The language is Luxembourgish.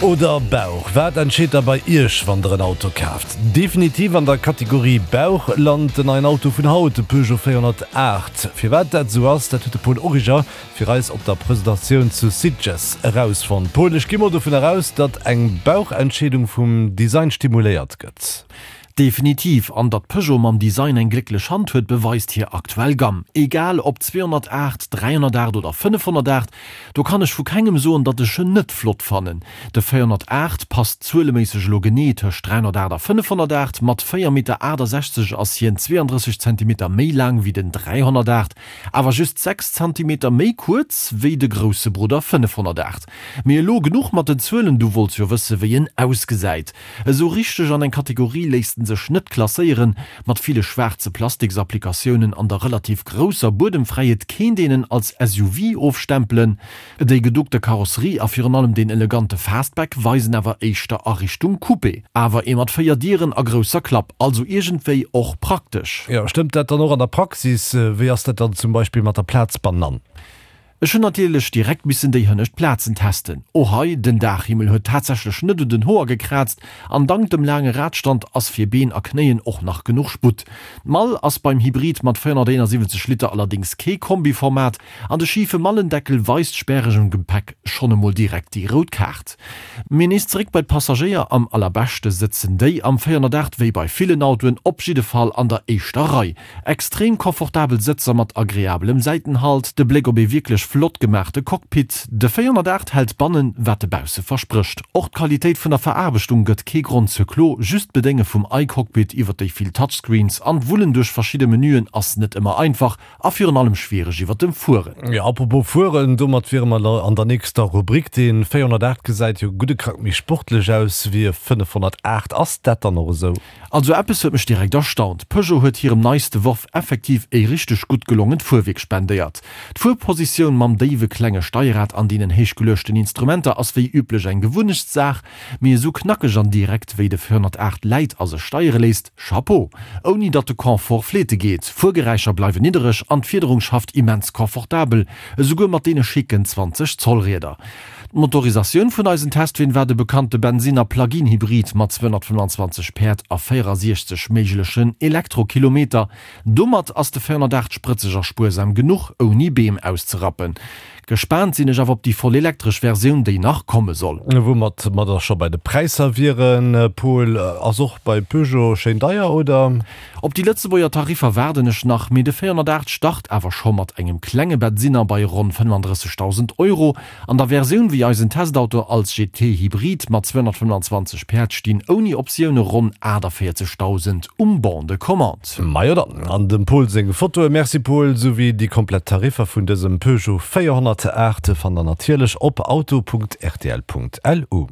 Oder Bauch? Wat entscheet da bei Iech, wann der en Auto kaaft? Definitiv an der Kategorie Bauch lant den neien Auto vun haut, de Peugeot 408. Firwat dat esou ass, dat huet de Paul Origer fir eis op der Presentatioun zu Sitges erausfonnt. Paul, ech gi mol dovun eraus, datt eng Bauchentscheedung vum Design stimuléiert gëtt. Definitiv, an datt Peugeot mam Design eng glécklech Hand huet, beweist hir aktuell Gamm. Egal ob 208, 308 oder 508, do kann ech vu kengem soen, datt ech en net flott fannen. De 408 passt zueleméisseg elo genee tëscht 308 a 508, mat 4 Meter 68 ass hien 32 Zentimeter méi laang wéi den 308, awer just 6 Zentimeter méi kuerz wéi de grousse Brudder 508. Mee elo genuch mat den Zuelen, du wollts jo wësse wéi en ausgesäit. Esou richteg an eng Kategorie léisst en sech net klasséieren. Mat ville schwaarze Plastiksapplikatiounen an der relativ grousser Buedemfräiheet kéint een en als SUV ofstempelen. Déi geduckte Karosserie a virun allem deen elegante Fastback weisen awer éischter a Richtung Coupé. Awer ee mat 4 Dieren a grousser Klapp, also iergendwéi och praktesch. Jo, stëmmt dat dann och an der Praxis? Wéi ass dat dann zum Beispill mat der Plaz bannan? Ech hunn natierlech direkt missen déi hënnescht Plazen testen. Och hei, den Daachhimmel huet tatsächlech net un den Hoer gekraazt an dank dem laange Radstand ass fir Been a Knéien och nach genuch Sputt. D'Mall ass beim Hybrid mat 471 Liter allerdéngs kee Kombiformat an de schife Mallendeckel weist späregem Gepäck schonn emol direkt déi rout Kaart. Mee nees zeréck bei d'Passagéier, am allerbeschte sëtzen déi am 408 wéi bei villen Autoen op jidde Fall an der éischter Rei. Extrem komfortabel Sëtzer mat agreabelem Säitenhalt, de Bléck op ee wierklech flott gemaachte Cockpit. De 408 hält bannen, wat e bausse versprécht. Och d'Qualitéit vun der Veraarbechtung gëtt kee Grond zur Klo, just d'Bedénge vum iCockpit iwwer déi vill Touchscreens an d'Wullen duerch verschidde Menüen ass net ëmmer einfach a virun allem schwiereg iwwer dem Fueren. Jo, apropos Fueren, domat wiere mer an der nächster Rubrik. Dee 408 gesäit jo gudde Krack méi sportlech aus wéi e 508. Ass dat dann och esou? Also eppes huet mech direkt erstaunt, Peugeot huet hirem neiste Worf effektiv e richteg gutt gelongent Fuerwierk spendéiert. D'Fuerpositioun mam déiwe klenge Steierrad an deenen héich geluechten Instrumenter ass wéi üblech eng Gewunnechtssaach, mee esou knackeg an direkt wéi de 408 läit a sech steiere léisst, Chapeau! Ouni datt de Confort fleete geet, Fuergeräischer bleiwen niddereg an d'Fiederung schafft immens confortabel, esouguer mat deene schicken 20 Zoll Rieder. D'Motorisatioun vun eisen Testween war de bekannte Bensinner Plug-in-Hybrid mat 225 Päerd a 64 méiglechen Elektrokilometer. Domat ass de 408 sprëtzeg a spuersam genuch, ouni Beem auszerappen. Gespaant sinn ech awer op déi voll elektresch Versioun, déi nach komme soll. Woumat mer da scho bei de Präisser wieren, Paul, ass och bei Peugeot schéin deier, oder? Op déi Lëtzebuerger Tariffer waarden ech nach, mee de 408 start awer scho mat engem klenge Bensinner bei ronn 35.000 Euro. An der Versioun wéi eisen Testauto als GT Hybrid mat 225 Päerd stinn ouni Optioune ronn 48.000 um Bon de commande. Majo dann, an dem Paul seng Fotoe, merci Paul, souwéi déi komplett Tariffer vun dësem Peugeot 408 fannt der natierlech op auto.rtl.lu.